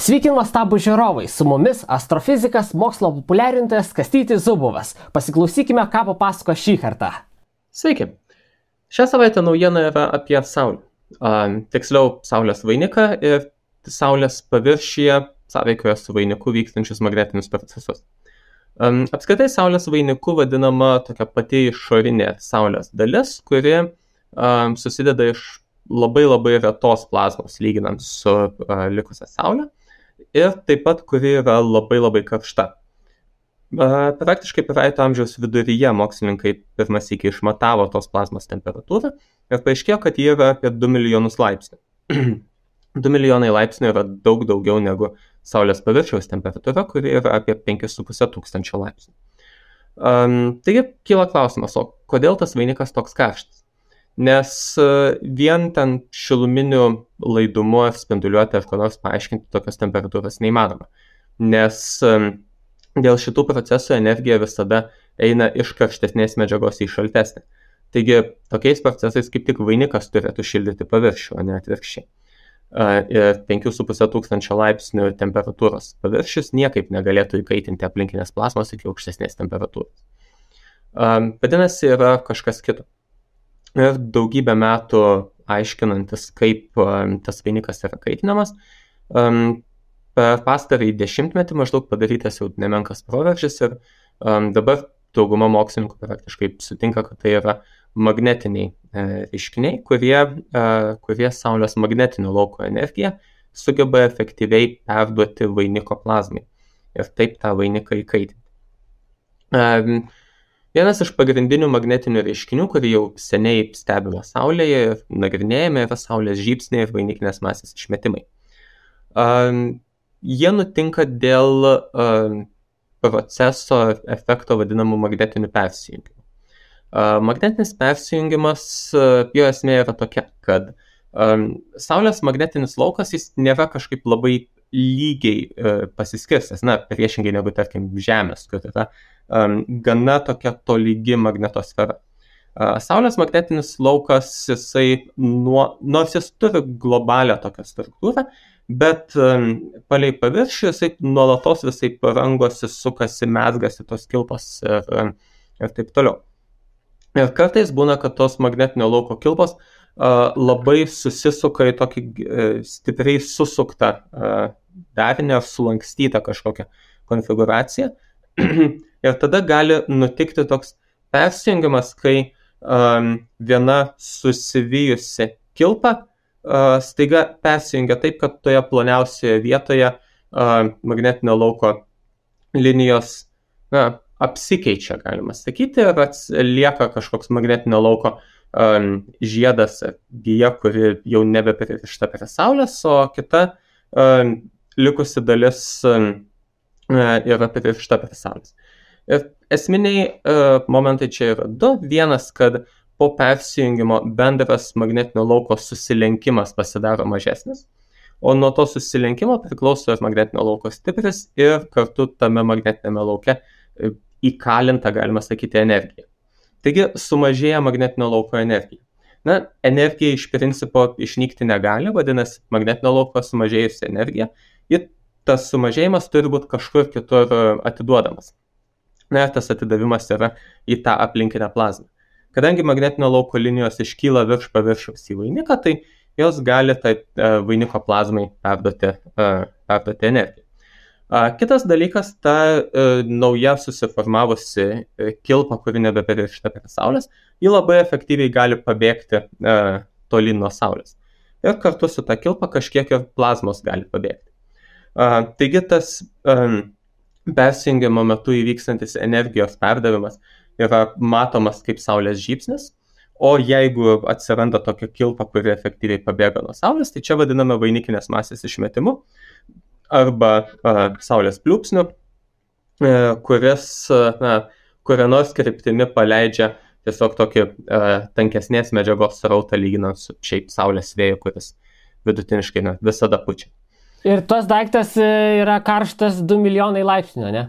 Sveiki nuostabų žiūrovai, su mumis astrofizikas, mokslo populiarintojas Kastytis Zubovas. Pasiklausykime, ką papasako šį kartą. Sveiki. Šią savaitę naujiena yra apie Saulę. Tiksliau, Saulės vainiką ir Saulės paviršiuje sąveikoje su vainiku vykstančius magnetinius procesus. Apskritai, Saulės vainiku vadinama tokia pati išorinė Saulės dalis, kuri susideda iš labai retos plazmos lyginant su likusia Saulė ir taip pat kuri yra labai karšta. Praktiškai praeito amžiaus viduryje mokslininkai pirmas iki išmatavo tos plazmos temperatūrą ir paaiškėjo, kad ji yra apie 2 milijonus laipsnių. 2 milijonai laipsnių yra daug daugiau negu Saulės paviršiaus temperatūra, kuri yra apie 5,5 tūkstančio laipsnių. Taigi kyla klausimas, o kodėl tas vainikas toks karštas? Nes vien ten šiluminiu laidumu ar spinduliuoti ar ko nors paaiškinti tokios temperatūros neįmanoma. Nes dėl šitų procesų energija visada eina iš karštesnės medžiagos į šaltesnę. Taigi tokiais procesais kaip tik vainikas turėtų šildyti paviršių, o ne atvirkščiai. Ir 5,5 tūkstančio laipsnių temperatūros paviršius niekaip negalėtų įkaitinti aplinkinės plazmos iki aukštesnės temperatūros. Vadinasi, yra kažkas kito. Ir daugybę metų aiškinantis, kaip tas vainikas yra kaitinamas, per pastarąjį 10-metį maždaug padarytas jau nemenkas proveržis ir dabar dauguma mokslininkų praktiškai sutinka, kad tai yra magnetiniai reiškiniai, kurie Saulės magnetinio lauko energiją sugeba efektyviai perduoti vainiko plazmai ir taip tą vainiką įkaitinti. Vienas iš pagrindinių magnetinių reiškinių, kurį jau seniai stebime Saulėje ir nagrinėjame, yra Saulės žybsniai ir vainikinės masės išmetimai. Jie nutinka dėl proceso efekto vadinamų magnetinių persijungimų. Magnetinis persijungimas, jo esmė yra tokia, kad Saulės magnetinis laukas jis nėra kažkaip labai lygiai pasiskirstęs, priešingai negu, tarkim, Žemės, kur yra gana tokia tolygi magnetosfera. Saulės magnetinis laukas, nors jis turi globalią tokią struktūrą, bet palei paviršių jisai nuolatos visai parangosi, sukasi, mezgasi tos kilpos ir taip toliau. Ir kartais būna, kad tos magnetinio lauko kilpos labai susisuka į tokį stipriai susuktą darinį ar sulankstytą kažkokią konfiguraciją. Ir tada gali nutikti toks persijungimas, kai viena susivijusi kilpa staiga persijungia taip, kad toje ploniausioje vietoje magnetinio lauko linijos apsikeičia, galima sakyti, ir lieka kažkoks magnetinio lauko žiedas ar gija, kuri jau nebepririšta prie Saulės, o kita likusi dalis yra pririšta prie Saulės. Ir esminiai momentai čia yra du. Vienas, kad po persijungimo bendras magnetinio lauko susilenkimas pasidaro mažesnis, o nuo to susilenkimo priklauso ir magnetinio lauko stipris ir kartu tame magnetinėme lauke įkalinta, galima sakyti, energija. Taigi sumažėja magnetinio lauko energija. Energija iš principo išnykti negali, vadinasi, magnetinio lauko sumažėjusi energija ir tas sumažėjimas turi būti kažkur kitur atiduodamas. Tas atidavimas yra į tą aplinkinę plazmą. Kadangi magnetinio lauko linijos iškyla virš paviršiaus į vainiką, tai jos gali tai vainiko plazmai perduoti energiją. Kitas dalykas, ta nauja susiformavusi kilpa, kuri nebepririšta prie Saulės, ji labai efektyviai gali pabėgti tolyn nuo Saulės. Ir kartu su ta kilpa kažkiek ir plazmos gali pabėgti. Taigi tas persijungimo metu įvykstantis energijos perdavimas yra matomas kaip Saulės žybsnis, o jeigu atsiranda tokia kilpa, kuri efektyviai pabėga nuo Saulės, tai čia vadiname vainikinės masės išmetimu arba Saulės pliūpsniu, kuria nors kryptimi paleidžia tiesiog tokį tankesnės medžiagos srautą lyginant su šiaip Saulės vėju, kuris vidutiniškai visada pučia. Ir tas daiktas yra karštas 2 milijonai laipsnių, ne?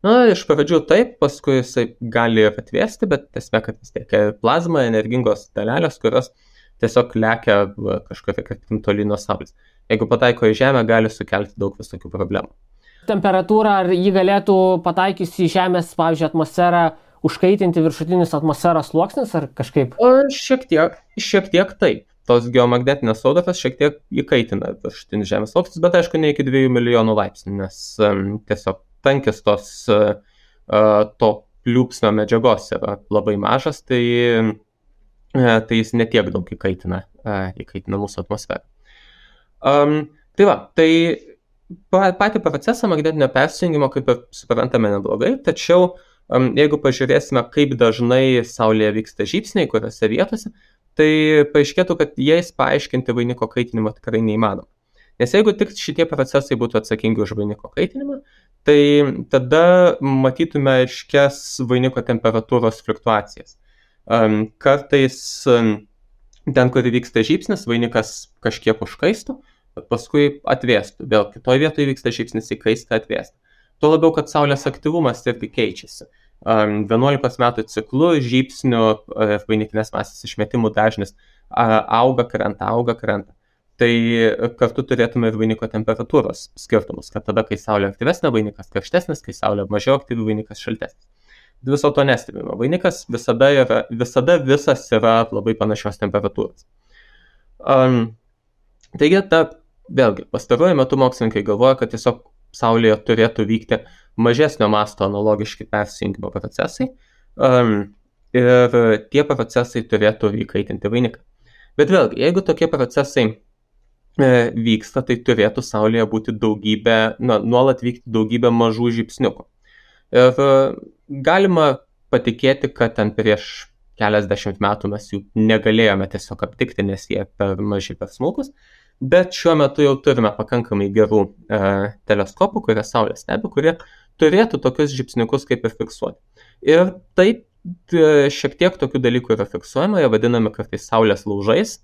Iš pradžių taip, paskui jisai gali ir atvėsti, bet esmė, kad vis tiek plazma, energingos dalelės, kurios tiesiog lekia kažkokia kryptim toli nuo Saulės. Jeigu pataiko į Žemę, gali sukelti daug visokių problemų. Temperatūra, ar jį galėtų pataikiusi į Žemės, pavyzdžiui, atmosferą, užkaitinti viršutinis atmosferos sluoksnis, ar kažkaip? Šiek tiek taip. Tos geomagnetinės audros šiek tiek įkaitina viršutinis Žemės sluoksnis, bet aišku, ne iki 2 milijonų laipsnių, nes tiesiog tankis to pliūpsnio medžiagos yra labai mažas, tai jis netiek daug įkaitina mūsų atmosferą. Tai patį procesą magnetinio persijungimo kaip ir suprantame neblogai, tačiau jeigu pažiūrėsime, kaip dažnai Saulėje vyksta žybsniai, kuriuose vietose, tai paaiškėtų, kad jais paaiškinti vainiko kaitinimą tikrai neįmanoma. Nes jeigu tik šitie procesai būtų atsakingi už vainiko kaitinimą, tai tada matytume aiškias vainiko temperatūros fluktuacijas. Kartais ten, kur vyksta žybsnis, vainikas kažkiek užkaistų, bet paskui atvėstų. Vėl kitoje vietoje vyksta žybsnis, įkaista, atvėstų. Tuo labiau, kad Saulės aktyvumas irgi keičiasi. 11 metų ciklu žybsnių vainikinės masės išmetimų dažnis auga, krenta. Tai kartu turėtume ir vainiko temperatūros skirtumus, kad tada, kai Saulė aktyvesnė, vainikas karštesnis, kai Saulė mažiau aktyvi, vainikas šaltesnis. Viso to nestebime. Vainikas visada visas yra labai panašios temperatūros. Taigi, vėlgi, pastaruoju metu mokslininkai galvoja, kad tiesiog Saulėje turėtų vykti mažesnio masto analogiški persijungimo procesai ir tie procesai turėtų įkaitinti vainiką. Bet vėlgi, jeigu tokie procesai vyksta, tai turėtų Saulėje būti nuolat vykti daugybė mažų žybsniukų. Ir galima patikėti, kad ten prieš keliasdešimt metų mes jų negalėjome tiesiog aptikti, nes jie per maži, per smulkus, bet šiuo metu jau turime pakankamai gerų teleskopų, kurie Saulę stebi, kurie turėtų tokius žybsniukus kaip ir fiksuoti. Ir taip šiek tiek tokių dalykų yra fiksuojama, jie vadinami kartais Saulės laužais.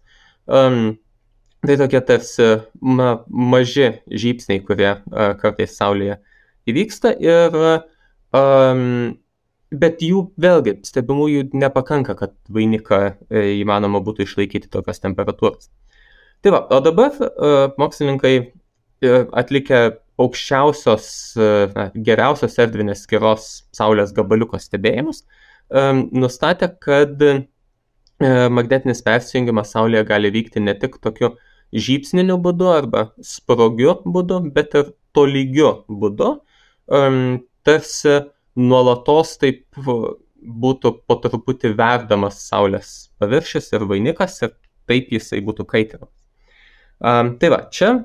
Tai tokie tarsi maži žybsniai, kurie kartais Saulėje įvyksta, bet jų vėlgi stebimųjų nepakanka, kad vainiką įmanoma būtų išlaikyti tokios temperatūros. Tai va, o dabar mokslininkai atlikę geriausios erdvinės skiros Saulės gabaliuko stebėjimus, nustatė, kad magnetinis persijungimas Saulėje gali vykti ne tik tokiu žybsniniu būdu arba sprogiu būdu, bet ir tolygiu būdu, tarsi nuolatos taip būtų po truputį verdamas Saulės paviršius ir vainikas ir taip jisai būtų kaitinamas. Tai va, čia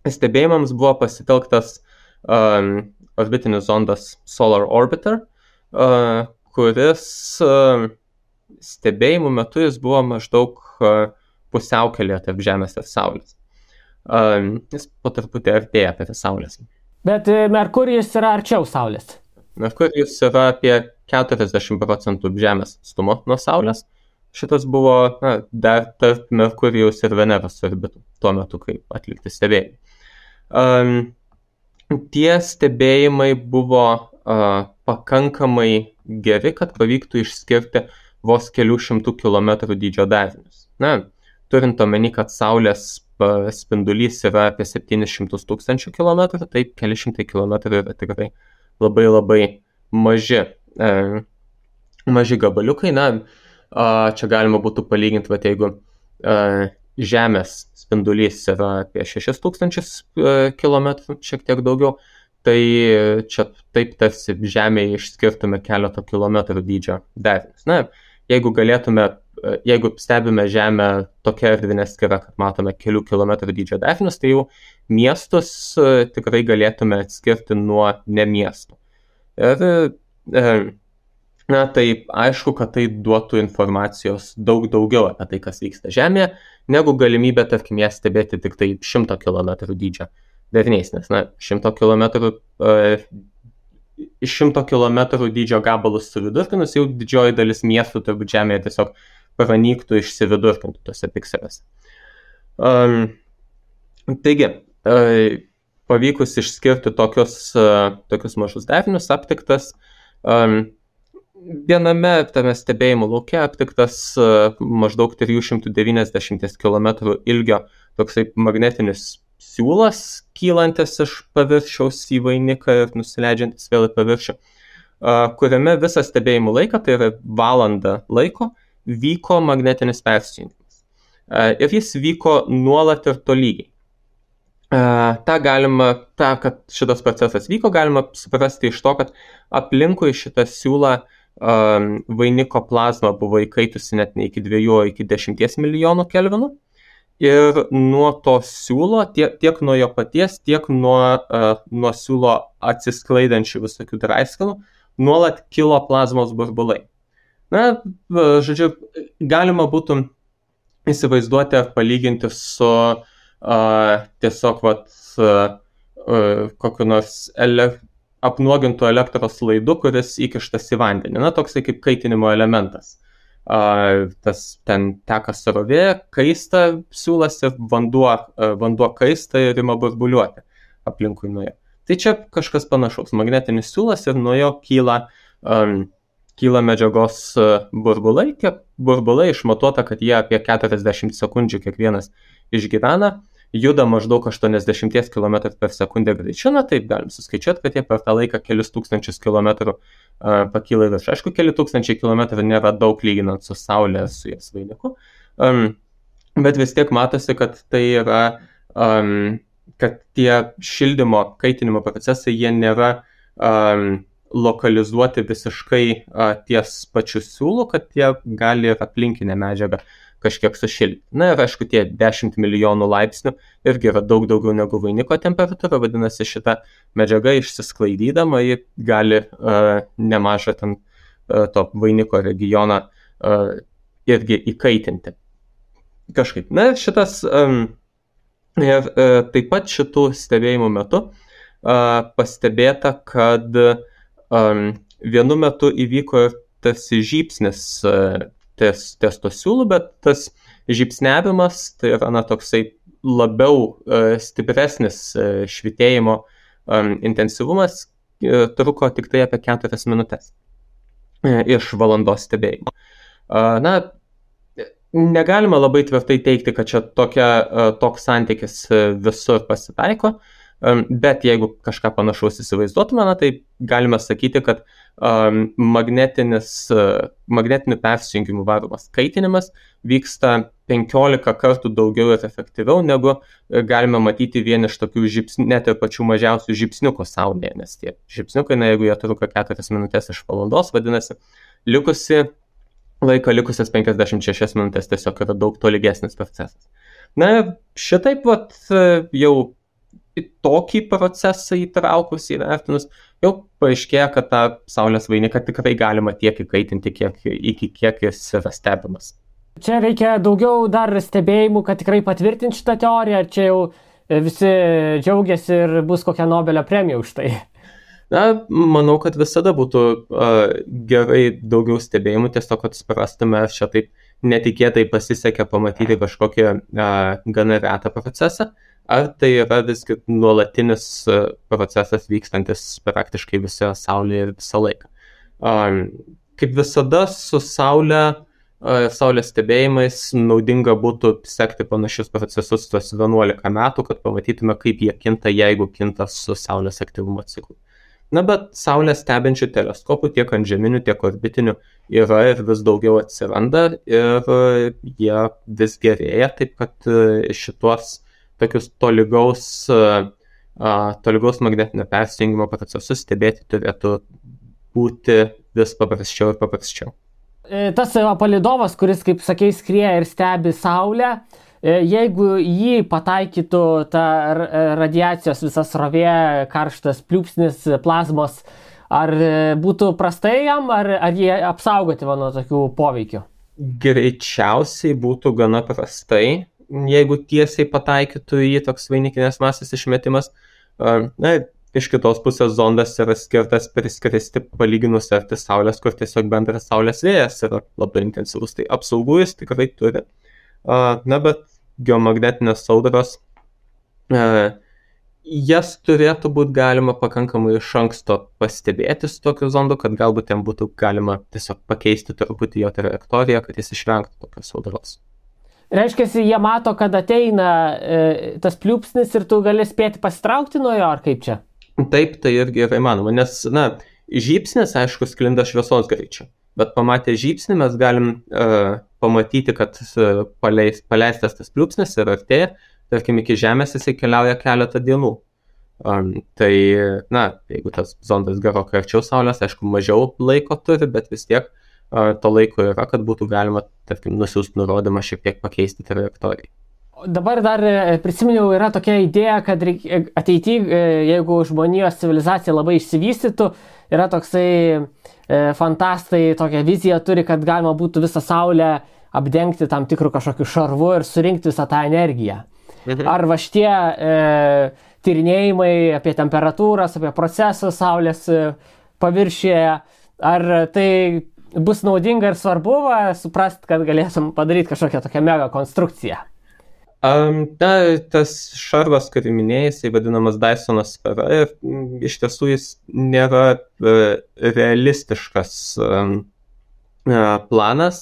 stebėjimams buvo pasitelktas orbitinis zondas Solar Orbiter, kuris stebėjimų metu jis buvo maždaug pusiaukelėje tarp Žemės ir Saulės. Jis po truputį artėja prie Saulės. Bet Merkurijus yra arčiau Saulės. Merkurijus yra apie 40% Žemės atstumo nuo Saulės. Šitas buvo dar tarp Merkurijaus ir Veneros orbitų tuo metu, kai atlikti stebėjimai. Tie stebėjimai buvo pakankamai geri, kad pavyktų išskirti vos kelių šimtų kilometrų dydžio darinius. Turint omeny, kad Saulės spindulys yra apie 700 000 kilometrų, taip keli šimtai kilometrų yra tikrai labai labai maži gabaliukai. Čia galima būtų palyginti, jeigu Žemės spindulys yra apie 6000 kilometrų, šiek tiek daugiau, tai čia taip tarsi Žemėje išskirtume keleto kilometrų dydžio darinius. Jeigu stebime Žemę tokia erdvinė skira, kad matome kelių kilometrų dydžio darinius, tai jau miestus tikrai galėtume atskirti nuo nemiestų. Ir tai aišku, kad tai duotų informacijos daug daugiau apie tai, kas vyksta Žemėje, negu galimybė, tarkim, ją stebėti tik tai 100 km dydžio dariniais, nes 100 km dydžio gabalus suvidurkinus, jau didžioji dalis miestų turbūt Žemėje tiesiog pranyktų, išsividurkintų tose pikseliuose. Taigi, pavykus išskirti tokius mažus darinius, aptiktas viename tame stebėjimo lauke aptiktas maždaug 390 km ilgio toksai magnetinis siūlas, kylantis iš paviršiaus į vainiką ir nusileidžiantis vėl į paviršių, kuriame visą stebėjimų laiką, tai yra valandą laiko, vyko magnetinis persijungimas. Ir jis vyko nuolat ir tolygiai. Kad šitas procesas vyko, galima suprasti iš to, kad aplinkui šitą siūlą vainiko plazma buvo įkaitusi net ne iki 2, o iki 10 milijonų kelvinų. Ir nuo to siūlo, tiek nuo jo paties, tiek nuo siūlo atsisklaidančių visokių draiskalų, nuolat kilo plazmos burbulai. Na, žodžiu, galima būtų įsivaizduoti ar palyginti su tiesiog kokiu nors apnuogintų elektros laidu, kuris įkištas į vandenį. Na, toksai kaip kaitinimo elementas. Tas ten teka srovė, kaista siūlas ir vanduo kaista ir ima burbuliuoti aplinkui nuo jo. Tai čia kažkas panašaus. Magnetinis siūlas ir nuo jo kyla medžiagos burbulai. Tie burbulai išmatuota, kad jie apie 40 sekundžių kiekvienas išgyvena, juda maždaug 80 km per sekundę greičiu, na taip galim suskaičiuoti, kad jie per tą laiką kelius tūkstančius kilometrų pakyla į viršų. Aišku, keli tūkstančiai kilometrų nėra daug lyginant su Saulė, su jos vainiku, bet vis tiek matosi, kad tai yra, kad tie šildymo, kaitinimo procesai, jie nėra lokalizuoti visiškai ties pačiu siūlu, kad jie gali ir aplinkinę medžiagą kažkiek sušildyti. Na ir aišku, tie 10 milijonų laipsnių irgi yra daug daugiau negu vainiko temperatūra, vadinasi, šita medžiaga išsisklaidydama, ji gali nemažą ten to vainiko regioną irgi įkaitinti. Kažkaip. Na ir šitas, taip pat šitų stebėjimų metu pastebėta, kad vienu metu įvyko ir tarsi žybsnis ties to siūlų, bet tas žybsnevimas, tai yra toksai labiau stipresnis švytėjimo intensyvumas, truko tik tai apie 4 minutės iš valandos stebėjimo. Na, negalima labai tvirtai teigti, kad čia toks santykis visur pasitaiko, bet jeigu kažką panašaus įsivaizduotume, tai galime sakyti, kad magnetiniu persijungimu varomas kaitinimas vyksta 15 kartų daugiau ir efektyviau, negu galime matyti vien iš tokių net ir pačių mažiausių žybsniukų Saulėje, nes tie žybsniukai, jeigu jie truko 4 minutės iš valandos, vadinasi, likusias 56 minutės tiesiog yra daug tolygesnis procesas. Na, šitaip jau į tokį procesą įtraukus, įvertinus, jau paaiškėja, kad tą Saulės vainiką tikrai galima tiek įkaitinti, iki kiek jis yra stebimas. Čia reikia daugiau dar stebėjimų, kad tikrai patvirtinti šitą teoriją, ar čia jau visi džiaugiasi ir bus kokia Nobelio premija už tai? Na, manau, kad visada būtų gerai daugiau stebėjimų, tiesiog kad suprastume, čia taip netikėtai pasisekė pamatyti kažkokią gana retą procesą, ar tai yra visgi nuolatinis procesas vykstantis praktiškai visoje Saulėje ir visą laiką. Kaip visada su Saulės stebėjimais naudinga būtų sekti panašius procesus tuos 11 metų, kad pamatytume, kaip jie kinta, jeigu kinta su Saulės aktyvumo ciklu. Na, bet Saulę stebinčių teleskopų tiek antžeminių, tiek orbitinių yra ir vis daugiau atsiranda ir jie vis gerėja, taip kad šituos tokius tolygaus magnetinio persijungimo procesus stebėti turėtų būti vis paprasčiau ir paprasčiau. Tas palydovas, kuris, kaip sakei, skrieja ir stebi Saulę, jeigu jį pataikytų ta radiacijos visas srovė, karštas pliūpsnis plazmos, ar būtų prastai jam, ar jie apsaugoti nuo tokių poveikių? Greičiausiai būtų gana prastai, jeigu tiesiai pataikytų į toks vainikinės masės išmetimas. Na, iš kitos pusės zondas yra skirtas priskristi palyginus arti Saulės, kur tiesiog bendras Saulės vėjas yra labai intensyvus, tai apsaugų jis tikrai turi. Na, bet geomagnetinės audros jas turėtų būti galima pakankamai iš anksto pastebėti su tokiu zondu, kad galbūt ten būtų galima tiesiog pakeisti truputį jo trajektoriją, kad jis išvengtų tokios audros. Reiškia, jie mato, kad ateina tas pliūpsnis ir tu gali spėti pasitraukti nuo jo, ar kaip čia? Taip, tai irgi yra įmanoma, nes, žybsnis, aišku, sklinda šviesos greičiu, bet pamatę žybsnį mes galim pamatyti, kad paleistas tas pliūpsnis ir artėja, tarkim, iki Žemės jisai keliauja keletą dienų. Tai, jeigu tas zondas gerokai arčiau Saulės, aišku, mažiau laiko turi, bet vis tiek to laiko yra, kad būtų galima, tarkim, nusiųsti nurodymą šiek tiek pakeisti trajektoriją. Dabar dar prisiminiau, yra tokia idėja, kad ateityje, jeigu žmonijos civilizacija labai išsivystytų, yra toksai fantastai, tokia vizija turi, kad galima būtų visą Saulę apdengti tam tikrų kažkokių šarvų ir surinkti visą tą energiją. Ar va šitie tyrinėjimai apie temperatūras, apie procesus Saulės paviršiuje, ar tai bus naudinga ir svarbu suprast, kad galėsim padaryti kažkokią tokią mega konstrukciją? Tas šarvas, kurį minėjai, jisai vadinamas Dysono sfera ir iš tiesų jis nėra realistiškas planas,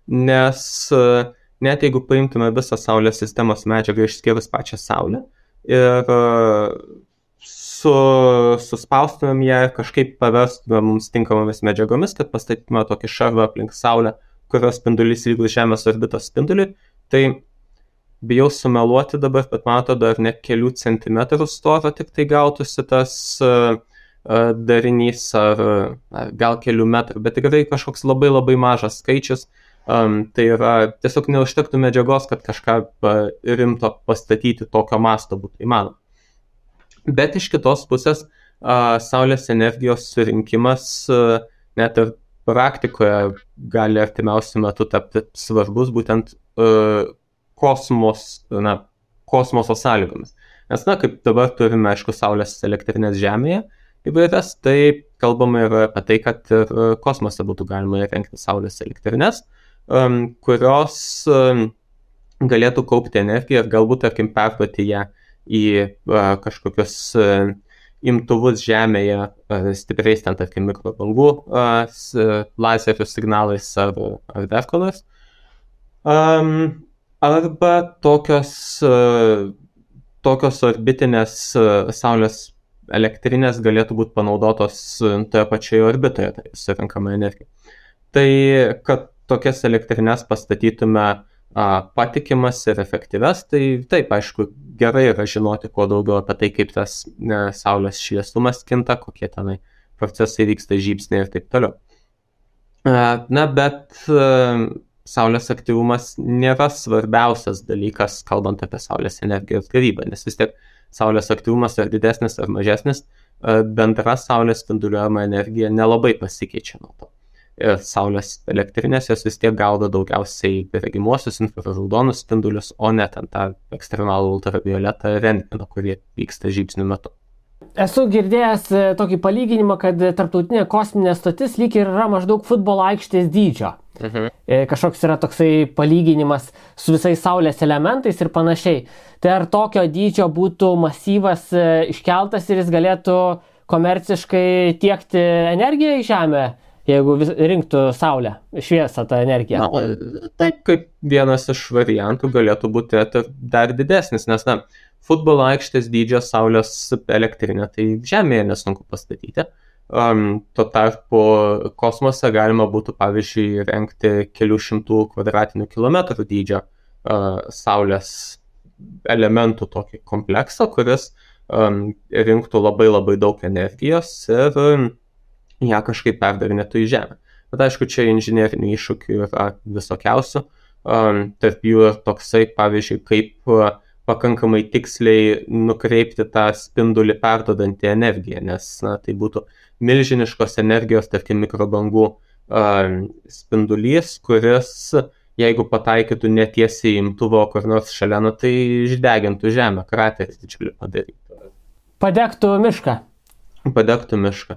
nes net jeigu paimtume visą Saulės sistemos medžiagą išskyrus pačią Saulę ir suspaustumėm ją ir kažkaip paverstume mums tinkamomis medžiagomis, kad pastatytume tokį šarvą aplink Saulę, kurios spindulys lygus Žemės orbitos spinduliui, tai bijau sumeluoti dabar, bet man atrodo, ar ne kelių centimetrų storio tik tai gautųsi tas darinys, ar gal kelių metrų, bet tikrai kažkoks labai labai mažas skaičius. Tai yra, tiesiog neužtektų medžiagos, kad kažką rimto pastatyti tokio masto būtų įmanoma. Bet iš kitos pusės, Saulės energijos surinkimas net ir praktikoje gali artimiausiu metu tapti svarbus būtent kosmoso sąlygomis. Nes, kaip dabar turime, aišku, Saulės elektrinės Žemėje įvairias, tai kalbama yra apie tai, kad ir kosmose būtų galima įrengti Saulės elektrinės, kurios galėtų kaupti energiją ir galbūt, tarkim, perduoti ją į kažkokius imtuvus Žemėje, stipriais ten, tarkim, mikrobangų lazerių signalais ar dar ko nors. Arba tokios orbitinės Saulės elektrinės galėtų būti panaudotos toje pačioje orbitoje, tai surinkama energija. Tai, kad tokias elektrinės pastatytume patikimas ir efektyves, tai taip, aišku, gerai yra žinoti kuo daugiau apie tai, kaip tas Saulės šviesumas kinta, kokie tenai procesai vyksta, žybsniai ir taip toliau. Bet Saulės aktyvumas nėra svarbiausias dalykas, kalbant apie Saulės energijos gavybą, nes vis tiek Saulės aktyvumas ar didesnis ar mažesnis, bendra Saulės spinduliuojama energija nelabai pasikeičia nuo to. Ir Saulės elektrinės jos vis tiek gaudo daugiausiai regimuosius infraraudonus spindulius, o ne ten tą ekstremalų ultravioletą rentgeną, kurie vyksta žybsnių metu. Esu girdėjęs tokį palyginimą, kad tarptautinė kosminė stotis lyg ir yra maždaug futbolo aikštės dydžio. Kažkoks yra toksai palyginimas su visais Saulės elementais ir panašiai. Tai ar tokio dydžio būtų masyvas iškeltas ir jis galėtų komerciškai tiekti energiją į Žemę, jeigu rinktų Saulę, šviesą tą energiją? Taip, kaip vienas iš variantų galėtų būti dar didesnis, nes futbolo aikštės dydžio Saulės elektrinę tai Žemėje nesunku pastatyti. Tuo tarpu kosmose galima būtų, pavyzdžiui, rengti kelių šimtų kvadratinių kilometrų dydžio Saulės elementų tokį kompleksą, kuris rinktų labai labai daug energijos ir ją kažkaip perdarinėtų į Žemę. Bet aišku, čia inžinerinių iššūkių yra visokiausių. Tarp jų ir toksai, pavyzdžiui, kaip pakankamai tiksliai nukreipti tą spindulį perdodantį energiją, nes tai būtų milžiniškos energijos, tarkim, mikrobangų spindulys, kuris, jeigu pataikytų netiesiai imtuvo kur nors šalia, tai išdegintų Žemę, kraterį didžiulį padarytų. Padegtų mišką. Padegtų mišką.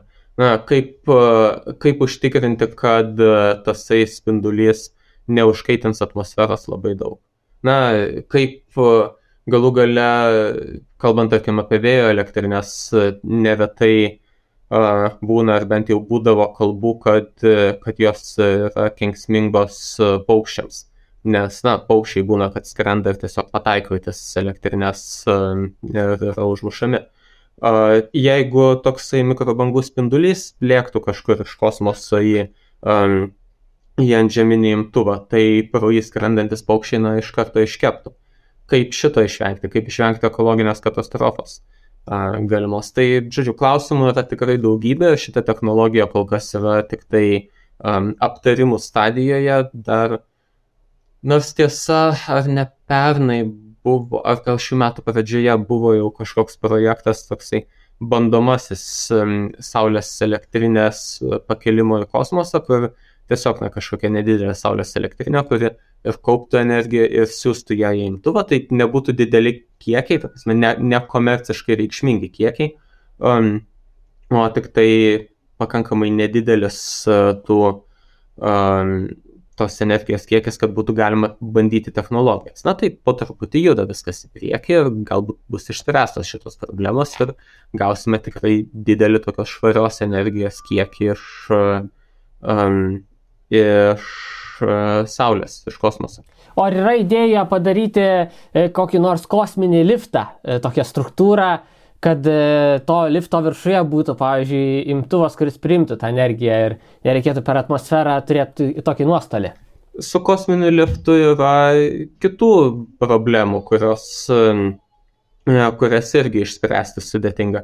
Kaip užtikrinti, kad tasai spindulys neužkaitins atmosferos labai daug. Kaip galų gale, kalbant, tarkim, apie vėjo elektrinės, neretai būna, ar bent jau būdavo kalbų, kad jos yra kenksmingos paukščiams. Nes, paukščiai būna, kad skrenda ir tiesiog pataiko į tas elektrinės ir yra užmušami. Jeigu toksai mikrobangų spindulys lėktų kažkur iš kosmoso į antžeminį imtuvą, tai pro jį skrendantis paukščiai iš karto iškeptų. Kaip šito išvengti, kaip išvengti ekologinės katastrofos galimos. Tai, žodžiu, klausimų yra tikrai daugybė, šita technologija kol kas yra tik tai aptarimų stadijoje, dar nors tiesa, ar ne pernai buvo, ar gal šių metų pradžioje buvo jau kažkoks projektas toksai bandomasis saulės elektrinės pakėlimo į kosmosą, kur tiesiog kažkokia nedidelė saulės elektrinė, kuri ir kauptų energiją ir siūstų ją į imtuvą, tai nebūtų dideli kiekiai, nekomerciškai reikšmingi kiekiai, o tik tai pakankamai nedidelis tos energijos kiekis, kad būtų galima bandyti technologijas. Tai po truputį juda viskas į priekį ir galbūt bus išspręstos šitos problemos ir gausime tikrai didelį tokios švarios energijos kiekį iš Saulės, iš kosmoso. O ar yra idėja padaryti kokį nors kosminį liftą, tokią struktūrą, kad to lifto viršuje būtų, pavyzdžiui, imtuvas, kuris priimtų tą energiją ir nereikėtų per atmosferą turėti tokį nuostolį? Su kosminiu liftu yra kitų problemų, kurias irgi išspręsti sudėtinga.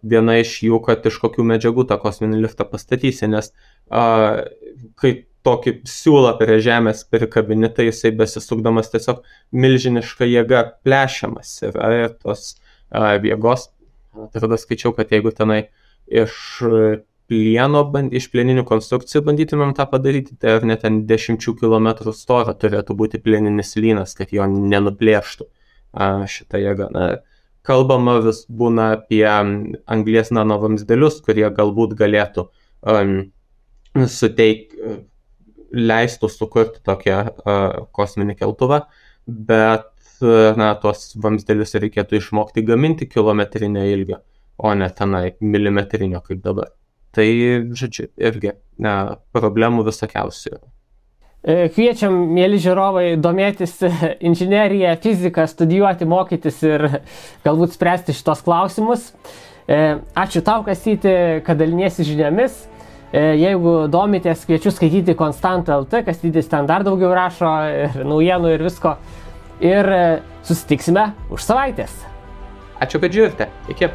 Viena iš jų, kad iš kokių medžiagų tą kosminį liftą pastatysi, nes kai tokį siūlą prie žemės prikabini, tai jisai besisukdamas tiesiog milžiniška jėga plešiamas ir tos jėgos, tada skaičiau, kad jeigu tenai iš plieninių konstrukcijų bandytumėm tą padaryti, tai ar net ten 10 km storą turėtų būti plieninis lynas, kad jo nenuplėštų šitą jėgą. Kalbama vis būna apie anglies nanovamzdelius, kurie galbūt galėtų leistų sukurti tokią kosminį keltuvą, bet tuos vamzdelius reikėtų išmokti gaminti kilometrinio ilgio, o ne tenai milimetrinio kaip dabar. Tai, žodžiu, irgi problemų visokiausių. Kviečiam, mėly žiūrovai, domėtis inžineriją, fiziką, studijuoti, mokytis ir galbūt spręsti šitos klausimus. Ačiū tau, Kastyti, kad daliniesi žiniomis. Jeigu domitės, kviečiu skaityti Konstanta.lt, Kastytis ten dar daugiau rašo ir naujienų ir visko. Ir susitiksime už savaitės. Ačiū, kad žiūrite. Iki.